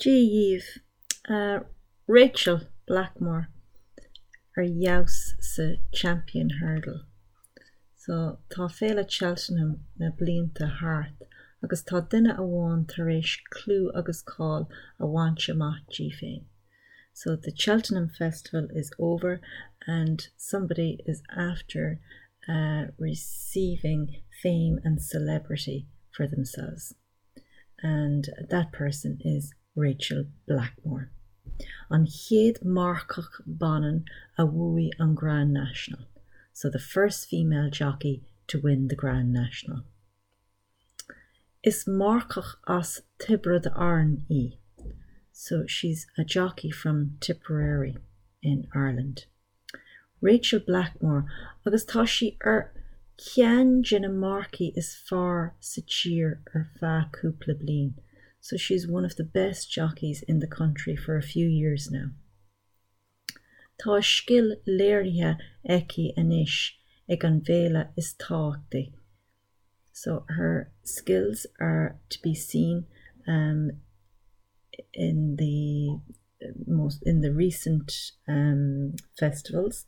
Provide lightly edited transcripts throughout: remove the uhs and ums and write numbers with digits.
Dia dhaoibh. Rachael Blackmore ar fheabhas sa Champion Hurdle. So tá Féile Cheltenham na blianta thart agus tá duine amháin tar éis clú agus cáil a bhaint amach di féin. So the Cheltenham Festival is over and somebody is after uh, receiving fame and celebrity for themselves. And that person is Rachael Blackmore. An chéad marcach baineann a bhuaigh an Grand National, so the first female jockey to win the Grand National. Is marcach as Tiobraid Árann í, so she's a jockey from Tipperary in Ireland. Rachael Blackmore agus tá sí ar cheann de na marcaigh is fearr sa tír ar feadh cúpla bliain, so she's one of the best jockeys in the country for a few years now. Tá a scil léirithe aici anois ag an bhféile is tábhachtaí, so her skills are to be seen um, in the most in the recent um, festivals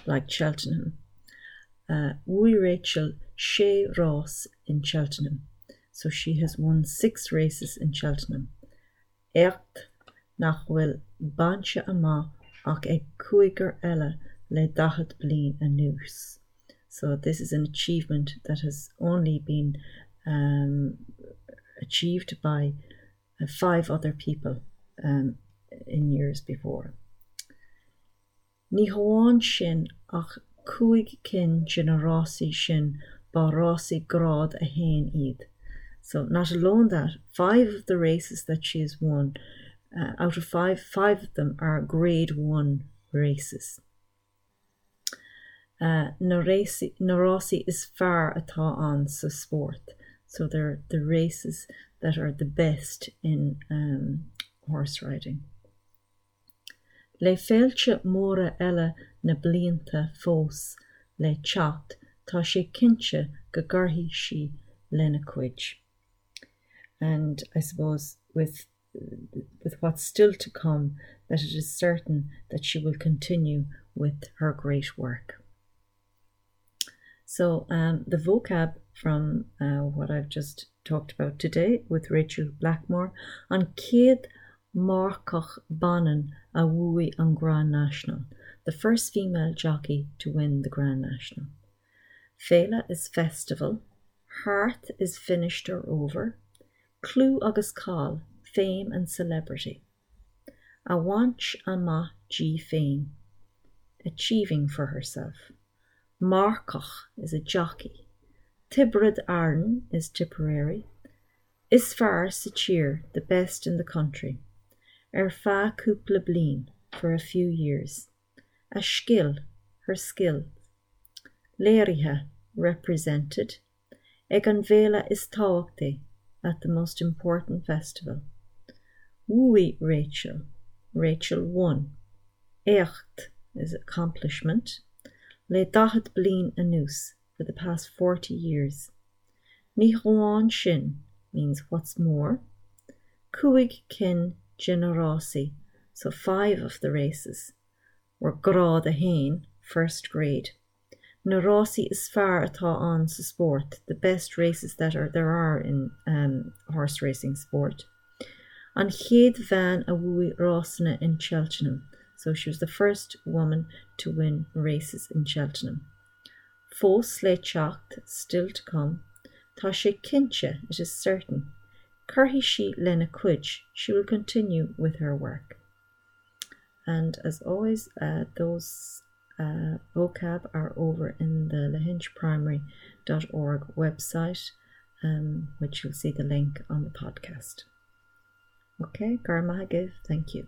like Cheltenham. Uh, Bhuaigh Rachael sé rás in Cheltenham, so she has won six races in Cheltenham. Éacht nach bhfuil bainte amach ach ag cúigear eile le 40 bliain anuas. So this is an achievement that has only been um, achieved by uh, five other people um, in years before. Ní hamháin sin ach cúig cinn de na rásaí sin ba rásaí grád a haon iad. So not alone that, five of the races that she has won, uh, out of five, five of them are grade one races. Uh, na rásaí, na rásaí is fearr atá ann sa spórt. So they're the races that are the best in um, horse riding. Le féilte móra eile na blianta fós le teacht, tá sé cinnte go gcuirfidh sí lena cuid. And I suppose with with what's still to come that it is certain that she will continue with her great work. So um, the vocab from uh, what I've just talked about today with Rachael Blackmore an chéad mharcach baineann a bhuaigh an Grand National, the first female jockey to win the Grand National. Féile is festival, thart is finished or over, clú agus cáil, fame and celebrity. A bhaint amach di féin, achieving for herself. Marcach is a jockey. Tiobraid Árann is Tipperary. Is fearr sa tír, the best in the country. Ar feadh cúpla bliain, for a few years. A scil, her skill. Léirithe, represented. Ag an bhféile is tábhachtaí, at the most important festival. Bhuaigh Rachael, Rachael won. Éacht is accomplishment. Le 40 bliain anuas, for the past 40 years. Ní hamháin sin means what's more. Cúig cinn de na rásaí, so five of the races, were grád a haon, first grade. Na rásaí is fearr atá ann sa spórt, the best races that are there are in um, horse racing sport. An chéad bhean a bhuaigh rásanna in Cheltenham, so she was the first woman to win races in Cheltenham. Fós le teacht, still to come. Tá sé cinnte, it is certain. Cuirfidh sí lena cuid, she will continue with her work. And as always, uh, those uh, vocab are over in the lahinchprimary.org website, um, which you'll see the link on the podcast. Okay, Garmahagav, thank you.